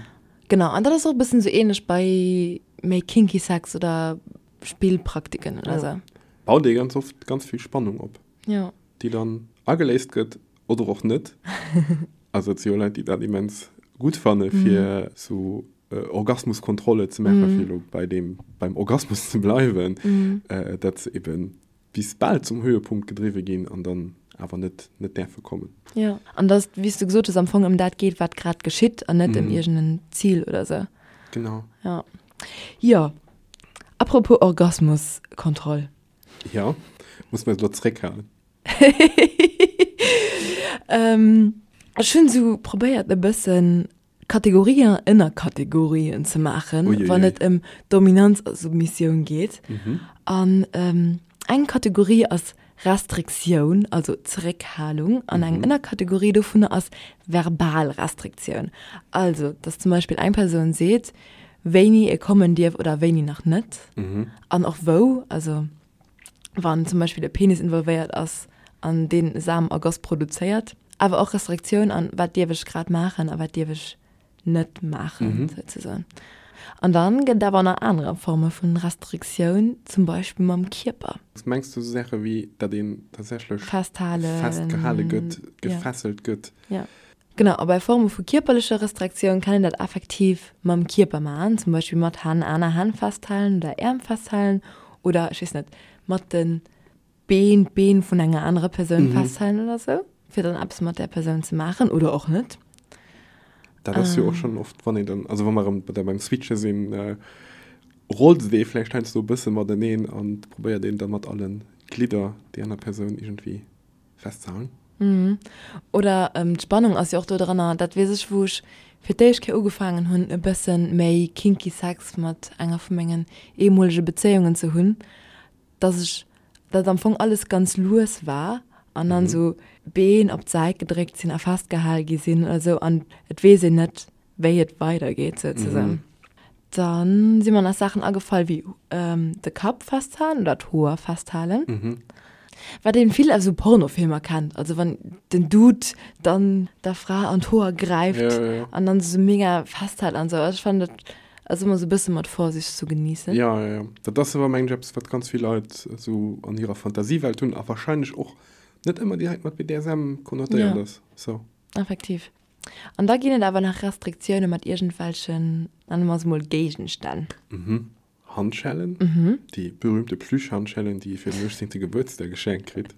Genau, an dat ass och e bëssen esou ähnlech bei méi kinky Sex oder Spillpraktiken oder esou. Baut ee ganz oft ganz vill Spannung op. Jo. Déi dann ageléist gëtt oder och net. Also et si jo Leit, déi dat immens gutt fanne fir sou Orgasmuskontrolle ze maachen, fir elo bei deem, beim Orgasmus ze bleiwen, datt se eben bis bal zum Höhepunkt gedriwwe ginn an dann awer net net däerfe kommen. Jo, an datt et, wéi s du gesot hues, am Fong ëm dat geet, wat grad geschitt an net ëm iergend en Zil oder sou. Genau. Jo. Jo. Apropos Orgasmuskontroll. Jo, muss mer eis elo zréckhalen. Ech hunn esou probéiert e bëssen Kategorien an Ënnerkategorien ze maachen, wann et ëm Dominanz a Submissioun geet. An eng Kategorie ass Restriktioun, also Zeréckhalung, an eng Ënnerkategorie dovunner ass verbal Restriktioun, also dass zum Beispill eng Persoun seet, wéini e kommen dierf oder wéini nach net an och wou, also wann zum Beispill e Penis involvéiert ass an deen Samenergoss produzéiert. Awer och Restriktioun an wat dierf ech grad maachen a wat dierf ech net maachen, souzesoen. An dann gëtt et awer nach anerer Forme vun Restriktioun, zum Beispill mam Kierper. Mengs du sou Saache wéi datt een tatsächlech Festhalen, festgehale gëtt, gefesselt gëtt? Ja. Genau, a bei Forme vu kierperlecher Restriktioun kann een dat effektiv mam Kierper maachen, zum Beispill mat Hänn, aner Hänn festhalen oder Äerm festhalen oder, ech weess net, mat de Been d'Been vun enger anerer Persoun festhalen oder sou, fir dann eppes mat där Persoun ze maachen oder och net. Dat ass jo och schonn oft, wann een dann, also wa mer erëm da beim Switche sinn, rollt et ee vläicht heiansdo e bësse mateneen an probéiert een da mat alle Glidder déi aner Persoun iergendwéi festzehalen. Oder d'Spannung ass jo och do dranner, dat weess ech, wou ech fir d'éischt Kéier ugefaangen hunn e bësse méi kinky Sex mat enger vu mengen ehemolege Bezéiungen ze hunn, dass ech, dat am Fong alles ganz lues war an dann esou Been op d'Säit gedréckt sinn a festgehal gi sinn oder esou an et weess een net, wéi et weidergeet souzesoen. Dann si mer nach Saachen agefall wéi de Kapp festhalen oder d'Hoer festhalen, wat een vill aus esou Pornofilmer kennt, also wann den Dude dann der Fra an d'Hoer gräift an dann se sou mega festhält an sou. Also ech fannen dat ass ëmmer sou e bësse mat Vorsicht zu genießen. Jo, jo, jo. Dat ass awer mengen ech eppes wat ganz vill Leit esou an hirer Fantasiewelt hunn a wahrscheinlech och net ëmmer direkt mat BDSM konnotéiert ass. So. Effektiv. An da ginn et awer nach Restriktioune mat iergendwelchen, nenne mer se mol Géigenstänn. Mhm. Handschellen, déi berühmte Plüschhandschellen, déi ee fir den 18. Gebuertsdag geschenkt kritt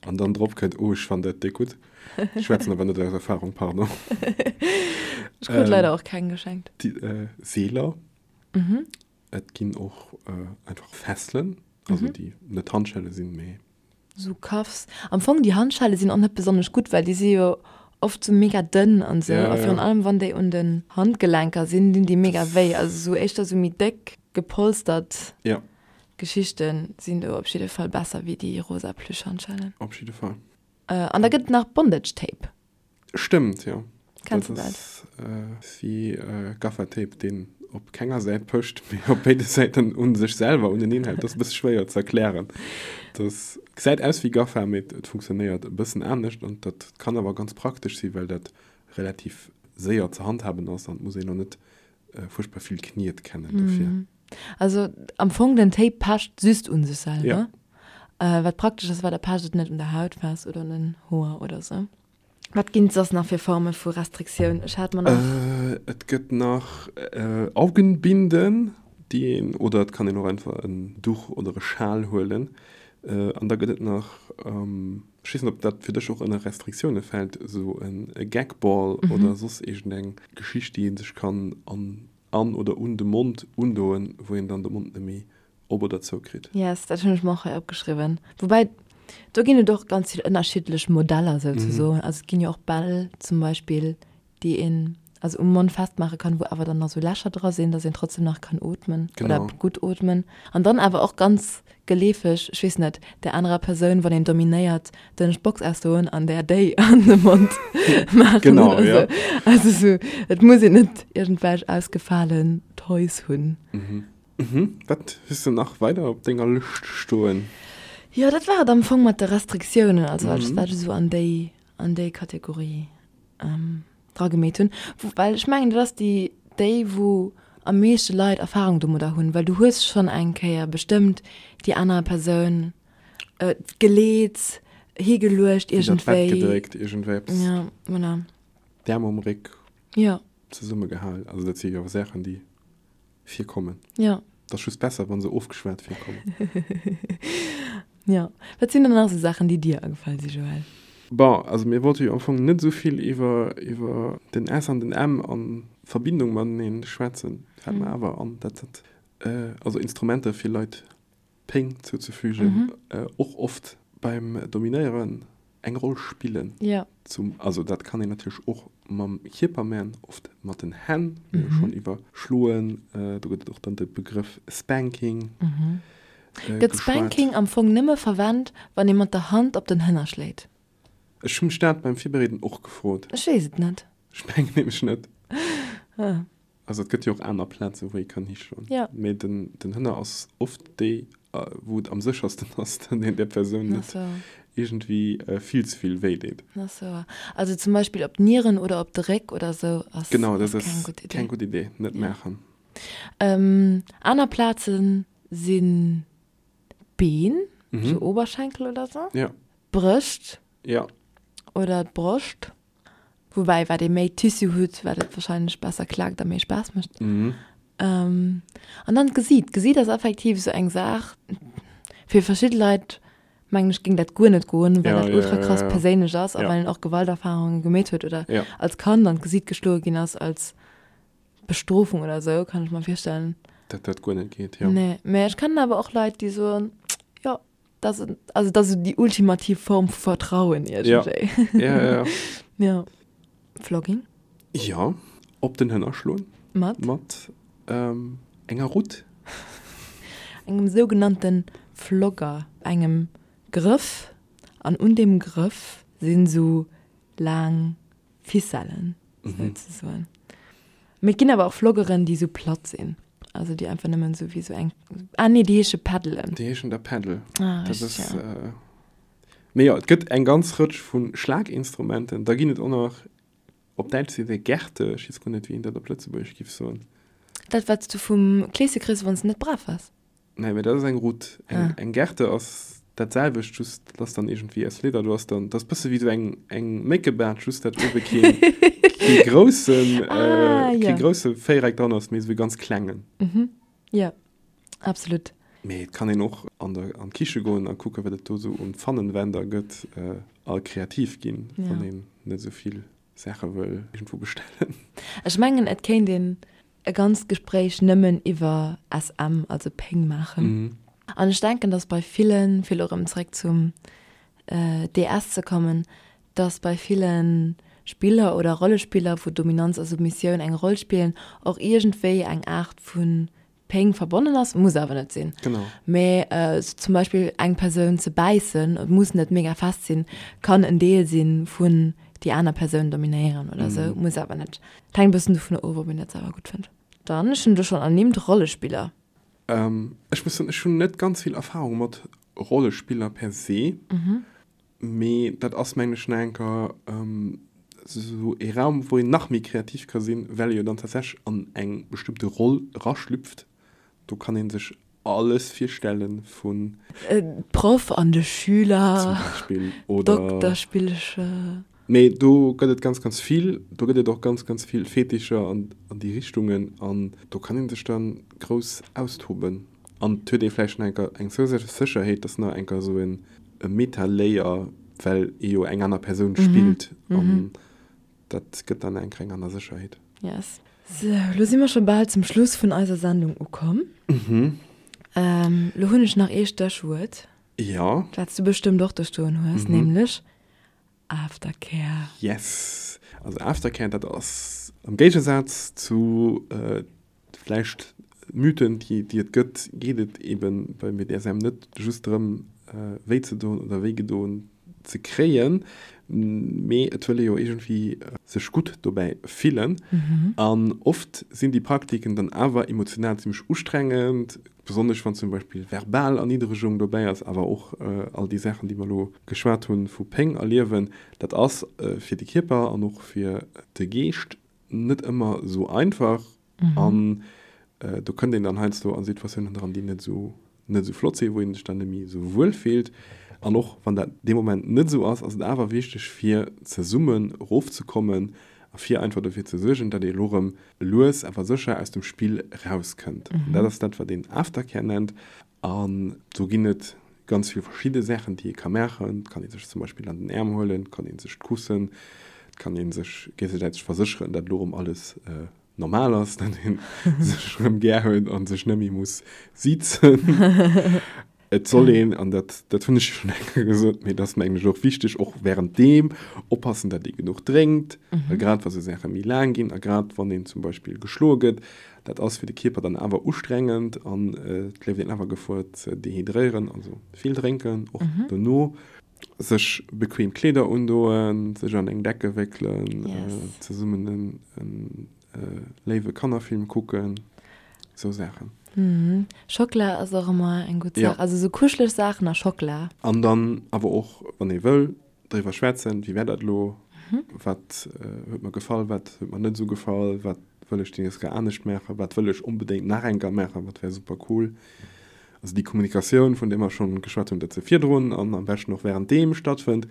an dann drop kënnt, oh ech fannen dat déck gutt. Ech schwätzen awer net aus Erfahrung, pardon. Ech krut leider och keng geschenkt. Déi Seeler. Et ginn och einfach Fesselen, also déi net Handschelle sinn, mee. Sou Cuffs. Am Fong déi Handschelle sinn och net besonnesch gutt, well déi si jo oft sou mega dënn an sou. A virun allem wann déi un den Handgelenker sinn, dinn déi mega wéi. Also sou éischter sou méi déck gepolstert Geschichten sinn do op jidde Fall besser wéi déi rosa Plüschhandschellen. Op jidde Fall. An da gëtt et nach Bondage Tape. Stëmmt, jo. Kenns de dat? Dat ass wéi Gaffertape, deen op kenger Säit pëscht, mee op béide Säiten u sech selwer uneneen hält. Dat ass e bësse schwéier ze erklären. Dat gesäit aus wéi Gaffer, mee et funktionéiert e bëssen anescht. An dat kann awer ganz praktesch sinn, well dat relativ séier ze handhaben ass an et muss een och net fuerchtbar vill Kniet kennen dofir. Also am Fong den Tape pecht just un sech selwer. Wat praktesch ass, well da pecht et net un der Haut fest oder un den Hoer oder sou. Wat ginn et soss nach fir Forme vu Restriktioun? Ech hat mer nach. Et gëtt nach Augenbinden, déi een, oder et kann een och einfach en Duch oder e Schal huelen. An da gëtt et nach, ech weess net, ob dat fir dech och ënner Restriktioune fält, esou e Gagball oder soss iergendeng Geschicht, déi ee sech kann an an oder un de Mond undoen, wou een dann de Mond net méi op oder zou kritt. Yes, dat hunn ech mer och hei opgeschriwwen. Woubäi, do ginn et och ganz vill ënnerschiddlech Modeller souzesoen. Also et ginn jo och Bäll zum Beispill, déi een also um Mond festmaache kann, wou awer dann nach sou Lächer dra sinn, dass een trotzdem nach kann ootmen oder gutt ootmen. An dann awer och ganz geleefeg, ech weess net, där anerer Persoun, wann een dominéiert, den Box ausdoen an där déi an de Mond maachen Genau, oder ja. sou. Also sou, et muss een net iergendwelch ausgefalen Toys hunn. Mhm. Wat hues de nach weider op denger Lëscht stoen? Jo, dat war et am Fong mat de Restriktiounen, also alles wat ech esou an déi, an déi Kategorie dragemeet hunn. Well ech mengen, dat ass déi, déi wou am meeschte Leit Erfahrung domadder hunn, well du hues schonn eng Kéier bestëmmt déi aner Persoun geleet, higeluecht Iwwer d'Bett iergendwéi. gedréckt, iergendwéi eppes. Ja, voilà. D'Äerm um Réck. Jo. Zesummegehal. Also dat si jo Saachen, déi virkommen. Jo. Et ass just besser, wa se ofgeschwat virkommen. Jo. Wat sinn dann nach esou Saachen, déi dir agefall si, Joël? Bon, also mir wollte jo am Fong net esou vill iwwer, iwwer den S an den M a Verbindung matenee schwätzen. Fält mer awer an, dat dat. also Instrumenter fir Leit Péng zouzefügen, och oft beim Dominéieren eng Roll spillen. Ja. Zum, also dat kann een natierlech och mam Kierper man, oft mat den Hänn, mir hu schonn iwwer Schloen, do gëtt et och dann de Begrëff Spanking geschwat. Gëtt Spanking am Fong nëmme verwent, wann ee mat der Hand op den Hënner schléit? Ech hu mech dat beim Virbereeden och gefrot. Ech weess et net. Ech mengen nämlech net. Also et gëtt jo och aner Plazen, wou ee kann hischloen. Ja. Mee den, den Hënner ass oft déi, wou et am séchersten ass, datt een där Persoun net iergendwéi vill ze vill wéi deet. Ach sou. Also zum Beispill op d'Nieren oder op de Réck oder sou ass, genau, dat ass keng gutt Idee. Keng gutt Idee, net maachen. Aner Plaze sinn d'Been, sou Oberschenkel oder sou. Ja. D'Brëscht. Ja. Oder d'Broscht. Woubäi, wat ee méi Tissu huet, wat et wahrscheinlech besser klaakt a méi Spaass mécht. Mhm. Ähm, an dann d'Gesiit. D'Gesiit ass effektiv esou eng Saach, fir verschidde Leit, mengen ech, géing dat guer net goen, well Ja, dat ja, ultra ja, krass ja. perséinlech ass a Ja. well een och Gewalterfarunge gemeet huet oder Ja. als Kand an d'Gesiit geschloe ginn ass als Bestrofung oder esou, kann ech mer virstellen. Dat dat guer net geet, jo. Nee, mä ech kennen awer och Leit, déi soen, jo, Dat ass, also dat ass esou déi ultimativ Form vu Vertrauen iergendwéi. Ja, ja, ja. Ja. Flogging? Ja, op den Hënner schloen. Mat? Mat ähm, enger Rutt. Engem sougenannte Flogger, engem Grëff, an un deem Grëff sinn esou laang Ficellen, souzesoen. Mee et ginn awer och Vloggeren, déi sou platt sinn. Also déi einfach nëmmen sou wéi sou eng, ah nee, déi heesche Paddelen. Déi heeschen da Paddle. Ah, Dat richtig, ass, ja. äh, mee jo, et gëtt eng ganz Rëtsch vu Schlaginstrumenten. Da ginn et och nach, op Däitsch seet ee Gerte, ech weess guer net, wéi een dat op Lëtzebuergesch giff soen. Dat, wat s du vum Kleesche kriss, wann s de net brav waars. Nee, mee dat ass eng Rutt. Eng, Ah. eng Gerte ass dat selwecht, just dat ass dann iergendwéi aus Leder. Du ass dann, dat ass bësse wéi sou eng, eng Méckebaart, just dat uewe keen, kee groussen, Ah, äh, kee ja. grousse Véiereck dran ass, mee sou e ganz klengen. Mhm. Ja, absolut. Mee et kann een och an der, an d'Kiche goen a kucken, wat et do sou un Pfannenwender gëtt, äh, a kreativ ginn, Ja. wann een net sou vill Saache wëll iergendwou bestellen. Ech mengen, et kéint een e ganzt Gespréich nëmmen iwwer SM, also Péng maachen. An ech denken, dass bei villen, fir elo erëm zréck zum DS ze kommen, dass bei ville Spiller oder Rollespiller, wou Dominanz a Submissioun eng Roll spillen, och iergendwéi eng Aart vu Péng verbonnen ass, muss awer net sinn. Genau. Mee sou zum Beispill eng Persoun ze bäissen, et muss net mega fest sinn, kann en Deel sinn vun déi aner Persoun dominéieren oder sou, muss awer net. Et hänkt e bëssen dovun of, ob een dat selwer gutt fënnt. Dann, ech hunn elo schonn ernimmt, Rollespiller. Ech muss soen, ech hunn net ganz vill Erfahrung mat Rollespiller per se. Mee dat ass, mengen ech, nach eng Kéier esou ee Raum, wou een nach méi kreativ ka sinn, well ee jo dann tatsächlech an eng bestëmmte Roll eraschlüpft. Do kann ee sech alles virstelle vun. Proff an de Schüler. Zum Beispill, oder. Dokterspillcher. Mee do gëtt et ganz, ganz vill. Do gëtt et och ganz, ganz vill Fetischer an déi Richtungen. An do kann ee sech da grouss austoben. An et huet ee vläicht nach enker eng zousätzlech Sécherheet, dass nach enker esou en e Meta-Layer, well ee jo eng aner Persoun spillt an dat gëtt dann enker eng aner Sécherheet. Yes. Sou, lo si mer scho bal zum Schluss vun eiser Sendung ukomm. Lo hunn ech nach ee Stéchwuert. Jo. Wat s du bestëmmt och do stoen hues, nämlech Aftercare. Yes. Also Aftercare, dat ass am Géigesaz zu Vläicht Mythen, déi déi et gëtt, geet et eben beim BDSM net just drëm, wéi ze doen oder wéi gedoen ze kréien, mee et wëll ee jo iergendwéi sech gutt dobäi fillen. An oft sinn déi Praktiken dann awer emotional zimmlech ustrengend, besonnesch wann zum Beispill verbal Erniddregung dobäi ass, awer och all déi Saachen, déi mer elo geschwat hunn, vu Péng erliewen. Dat ass fir de Kierper an och fir de Geescht net ëmmer esou einfach an do kënnt een dann heiansdo a Situatiounen dran, déi net esou net esou flott sinn, wou een sech dann net méi esou wuel fillt. An och wann dat dee Moment net esou ass, ass et awer wichteg fir zesummen erofzekommen a fir einfach dofir ze suergen, datt ee elo erëm lues awer sécher aus dem Spill erauskënnt. An dat ass dat, wat een Aftercare nennt. An do ginn et ganz vill verschidde Saachen, déi ee ka maachen. Et kann ee sech zum Beispill an den Äerm huelen, et kann ee sech kussen, et kann ee sech géigesäiteg versécheren, datt elo erëm alles. normal ass, datt ee sech erëm gär huet a sech net méi muss sizen. Et soll een, an dat, dat hunn ech jo schonn eng Kéier gesot, mee dat ass mengen ech och wichteg, och wärenddeem oppassen, datt ee genuch drénkt, well grad wa sou Saache méi laang ginn a grad wann een zum Beispill geschloe gëtt, dat ass fir de Kierper dann awer ustrengend an et leeft een awer Gefor ze dehydréieren. Also vill drénken, och dono. Sech bequem Kleeder undoen, sech an eng Decke wéckelen, zesummen en léiwe Kannerfilm kucken, sou Saachen. Schockela ass och ëmmer eng gutt Saach, also sou kuscheleg Saachen a Schockela. An dann awer och, wann ee wëll, driwwer schwätzen, wéi war dat elo, wat huet mer gefall, wat huet mer net esou gefall, wat wëll ech déi nächst Kéier anescht maachen, wat wëll ech onbedéngt nach eng Kéier maachen, wat wär super cool. Also déi Kommunikatioun, vun där mer schonn geschwat hunn, datt se virdrun an am beschten och wärenddeem stattfënnt,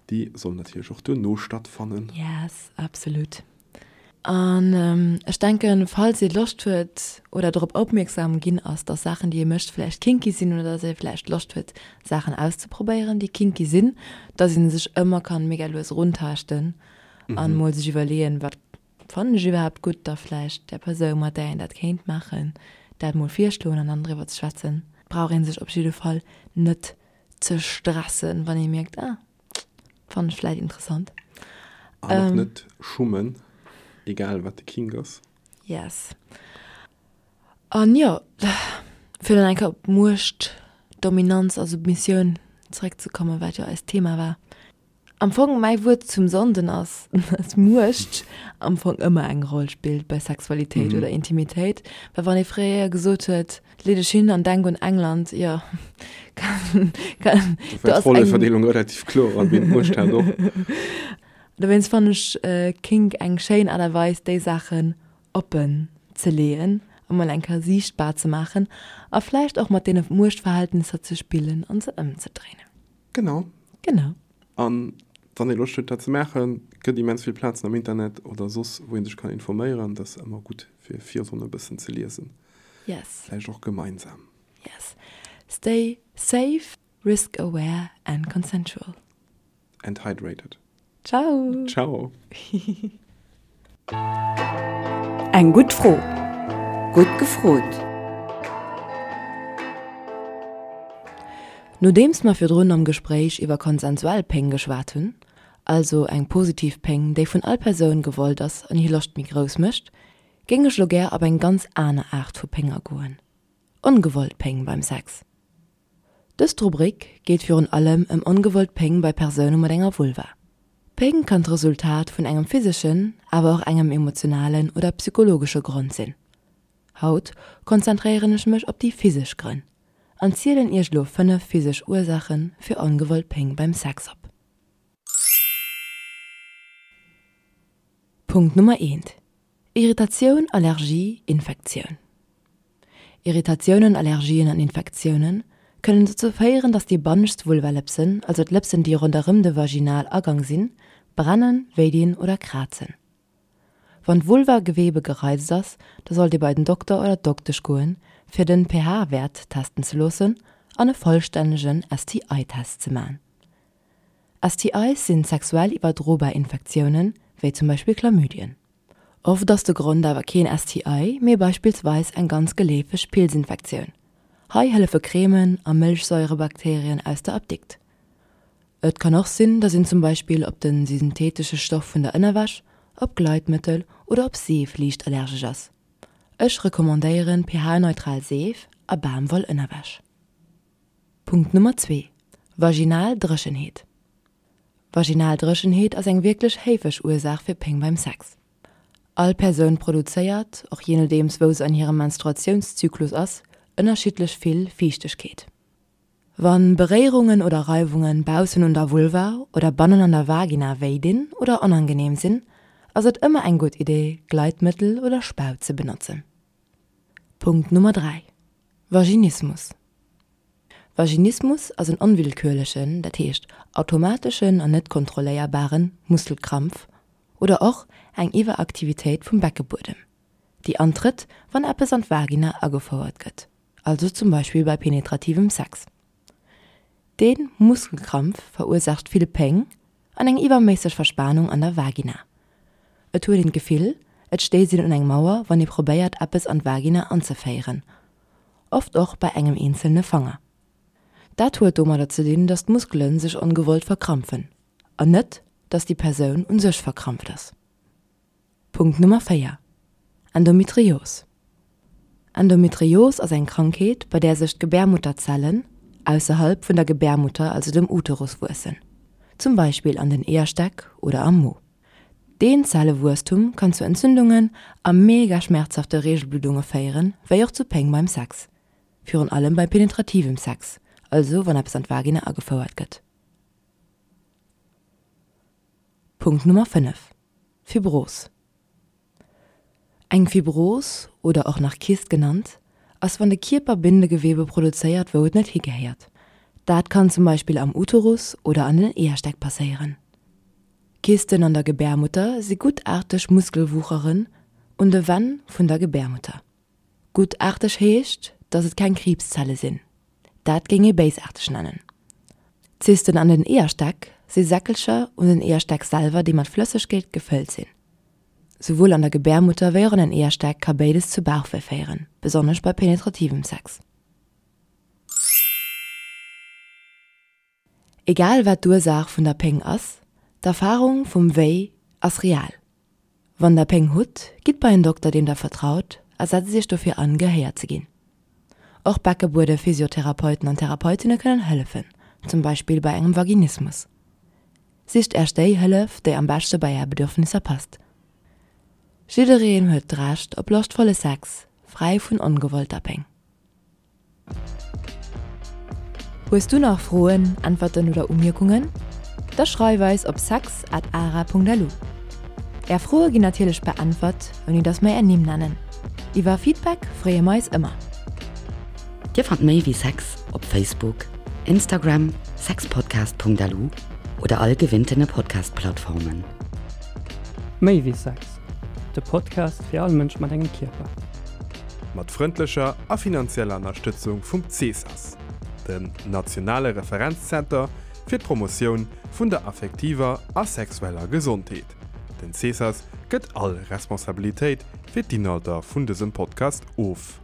déi soll natierlech och duerno stattfannen. Yes, absolut. An ech denken, falls ee Loscht huet oder drop opmierksam ginn ass, dass Saachen, déi ee mécht, vläicht kinky sinn oder dass ee vläicht Loscht huet, Saachen auszeprobéieren, déi kinky sinn, dass ee sech ëmmer kann mega lues eruntaaschten an mol sech iwwerleeën, wat fannen ech iwwerhaapt gutt, da vläicht där Persoun, mat där een dat kéint maachen, dat mol virschloen an dann driwwer ze schwätzen. Brauch ee sech op jidde Fall net ze stressen, wann ee mierkt, ah, Fannen ech vläit interessant. An och net schummen, egal wat de Kink ass. Yes. An jo, fir dann eng Kéier op Muecht, Dominanz a Submissioun zeréckzekommen, wat jo eist Thema war. Am Fong mäi Wuert zum Sonnden ass, dass Muecht am Fong ëmmer eng Roll spillt bei Sexualitéit oder Intimitéit. Well wann ee fréier gesot huet, Lee dech hin an denk un England, jo, kann, kann, do ass eng. D'Rolleverdeelung relativ kloer an wien d'Muecht hat och. Dowéinst fannen ech Kink eng schéin Aart a Weis déi Saachen oppen ze leeën a mol eng Kéier siichtbar ze maachen a vläicht och mat deene Muechtverhältnisser ze spillen an se ëmzedréinen. Genau. Genau. An wann ee Loscht huet dat ze maachen, gëtt immens vill Plazen am Internet oder soss wou ee sech kann informéieren. Dat ass ëmmer gutt fir virdrun e bëssen ze liesen. Yes. Vläicht och gemeinsam. Yes. Stay safe, risk aware and consensual. And hydrated. Ciao. Ciao. Eng gutt Fro. Gutt gefrot. Nodeems mer virdrun am Gespréich iwwer konsensuell Péng geschwat hunn, also eng positiv Péng, déi vun all Persoun gewollt ass an hir Loscht méi grouss mécht, Géing ech lo gär op eng ganz aner Aart vu Péng agoen, ongewollt Péng beim Sex. Dëst Rubrik geet virun allem ëm ongewollt Péng bei Persoune mat enger Vulva. Péng kann d'Resultat vun engem physeschen, awer och engem emotionalen oder psychologesche Grond sinn. Haut konzentréieren ech mech op déi physesch Grënn an zielen iech lo 5 physesch Ursaache fir ongewollt Péng beim Sex op. Punkt Nummer eent, Irritatioun, Allergie, Infektioun. Irritatiounen, Allergien an Infektioune kënnen dozou féieren, dass déi bannescht Vulvalëpsen, also d'Lëpsen déi ronderëm de Vaginalagang sinn, brennen, wéidinn oder krazen. Wann d'Vulvagewebe gereizt ass, da sollt Dir bei den Dokter oder d'Doktesch goen, fir den pH-Wäert testen ze loossen an e vollstännegen STI-Test ze man. STIs sinn sexuell iwwerdrobar Infektiounen, wéi zum Beispill Chlamydien. Oft ass de Grond awer keen STI, mee beispillsweis eng ganz geleefeg Pilzinfektioun. Hei hëllefe Cremen a Mëlchsairebakterien aus der Apdikt. Et kann och sinn, dass een zum Beispill op de synthetesche Stoff vun der Ënnerwäsch, op Gleitmëttel oder op Seef liicht allergesch ass. Ech recommandéieren pH-neutral Seef a Bamwoll-Ënnerwäsch. Punkt Nummer zwee, Vaginal Dréchenheet. Vaginal Dréchenheet ass eng wierklech héifeg Ursaach fir Péng beim Sex. All Persoun produzéiert, och jee nodeems wou se an hirem Menstruatiounszyklus ass, ënnerschiddlech vill Fiichtegkeet. Wann Beréierungen oder Reiwungen baussen un der Vulva oder bannen an der Vagina wéi dinn oder onangeneem sinn, ass et ëmmer eng gutt Idee Gleitmëttel oder Spaut ze benotzen. Punkt Nummer 3, Vaginismus. Vaginismus ass en onwillkürlechen, dat heescht automateschen an net kontrolléierbaren, Muskelkrampf oder och eng Iwweraktivitéit vum Beckebuedem, déi antrëtt, wann eppes an d'Vagina agefouert gëtt, also zum Beispill bei penetrativem Sex. Dee Muskelkrampf verursaacht vill Péng an eng iwwerméisseg Verspanung an der Vagina. Et huet een d'Gefill, Et stéisst een un eng Mauer, wann ee probéiert, eppes an d'Vagina anzeféieren, oft och bei engem eenzelne Fanger. Dat huet domadder ze dinn, dass d'Muskele sech ongewollt verkrampfen, an net, dass déi Persoun un sech verkrampft ass. Punkt Nummer 4, Endometrios. Endometrios ass eng Krankheet, bei där sech d'Gebärmutterzellen ausserhalb vun der Gebärmutter, also dem Uterus, wuessen, zum Beispill an den Eeërstäck oder am Mo. Deen Zellewuesstum kann zu Entzündungen a mega schmerzhafte Reegelbluddunge féieren, wéi och zu Péng beim Sex, virun allem bei penetrativem Sex, also wann eppes an d'Vagina agefouert gëtt. Punkt Nummer 5, Fibros. Eng Fibros, oder och nach Kyst genannt, ass wann de Kierper Bindegewebe produzéiert wou et net higehéiert. Dat kann zum Beispill am Uterus oder an den Eeërstäck passéieren. Kysten an der Gebärmutter si guttaarteg Muskelwucheren un de Wänn vun der Gebärmutter. Guttaarteg heescht, dass et keng Kriibszelle sinn. Dat géing ee béisaarteg nennen. Zysten an den Eeërstäck si Säckelcher un den Eeërstäck selwer, déi mat Flëssegkeet gefëllt sinn. Souwuel an der Gebärmutter wéi och an den Eeërstäck ka béides zu Bauchwéi féieren, besonnesch bei penetrativem Sex. Egal wat d'Ursaach vun der Péng ass, d'Erfarung vum Wéi ass real. Wann der Péng hutt, gitt bei en Dokter deem der vertraut a setzt iech dofir an, gehéiert ze ginn. Och Beckebuede-Physiotherapeuten an Therapeutinne kënnen hëllefen, zum Beispill bei engem Vaginismus. Sicht Äech déi Hëllef, déi am beschte bei Är Bedürfnisser passt. Jiddereen huet d'Recht op loschtvolle Sex, fräi vun ongewollter Péng. Hues du nach Froen, Äntwerten oder Umierkungen? Da schreif eis op sex at ara.lu. Är Froe ginn natierlech beäntwert, ouni dass mer är Nimm nennen. Iwwer Feedback freeë mer eis ëmmer. Dir fannt méi wéi Sex op Facebook, Instagram, sexpodcast.lu oder all gewinntene Podcast-Plattformen. Méi wéi Sex, de Podcast fir all Mënsch mat engem Kierper. Mat frëndlecher a finanzieller Ënnerstëtzung vum CESAS, dem nationale Referenzzenter fir d'Promotioun vun der affektiver a sexueller Gesondheet. Den CESAS gëtt all Responsabilitéit fir d'Inhalter vun dësem Podcast of.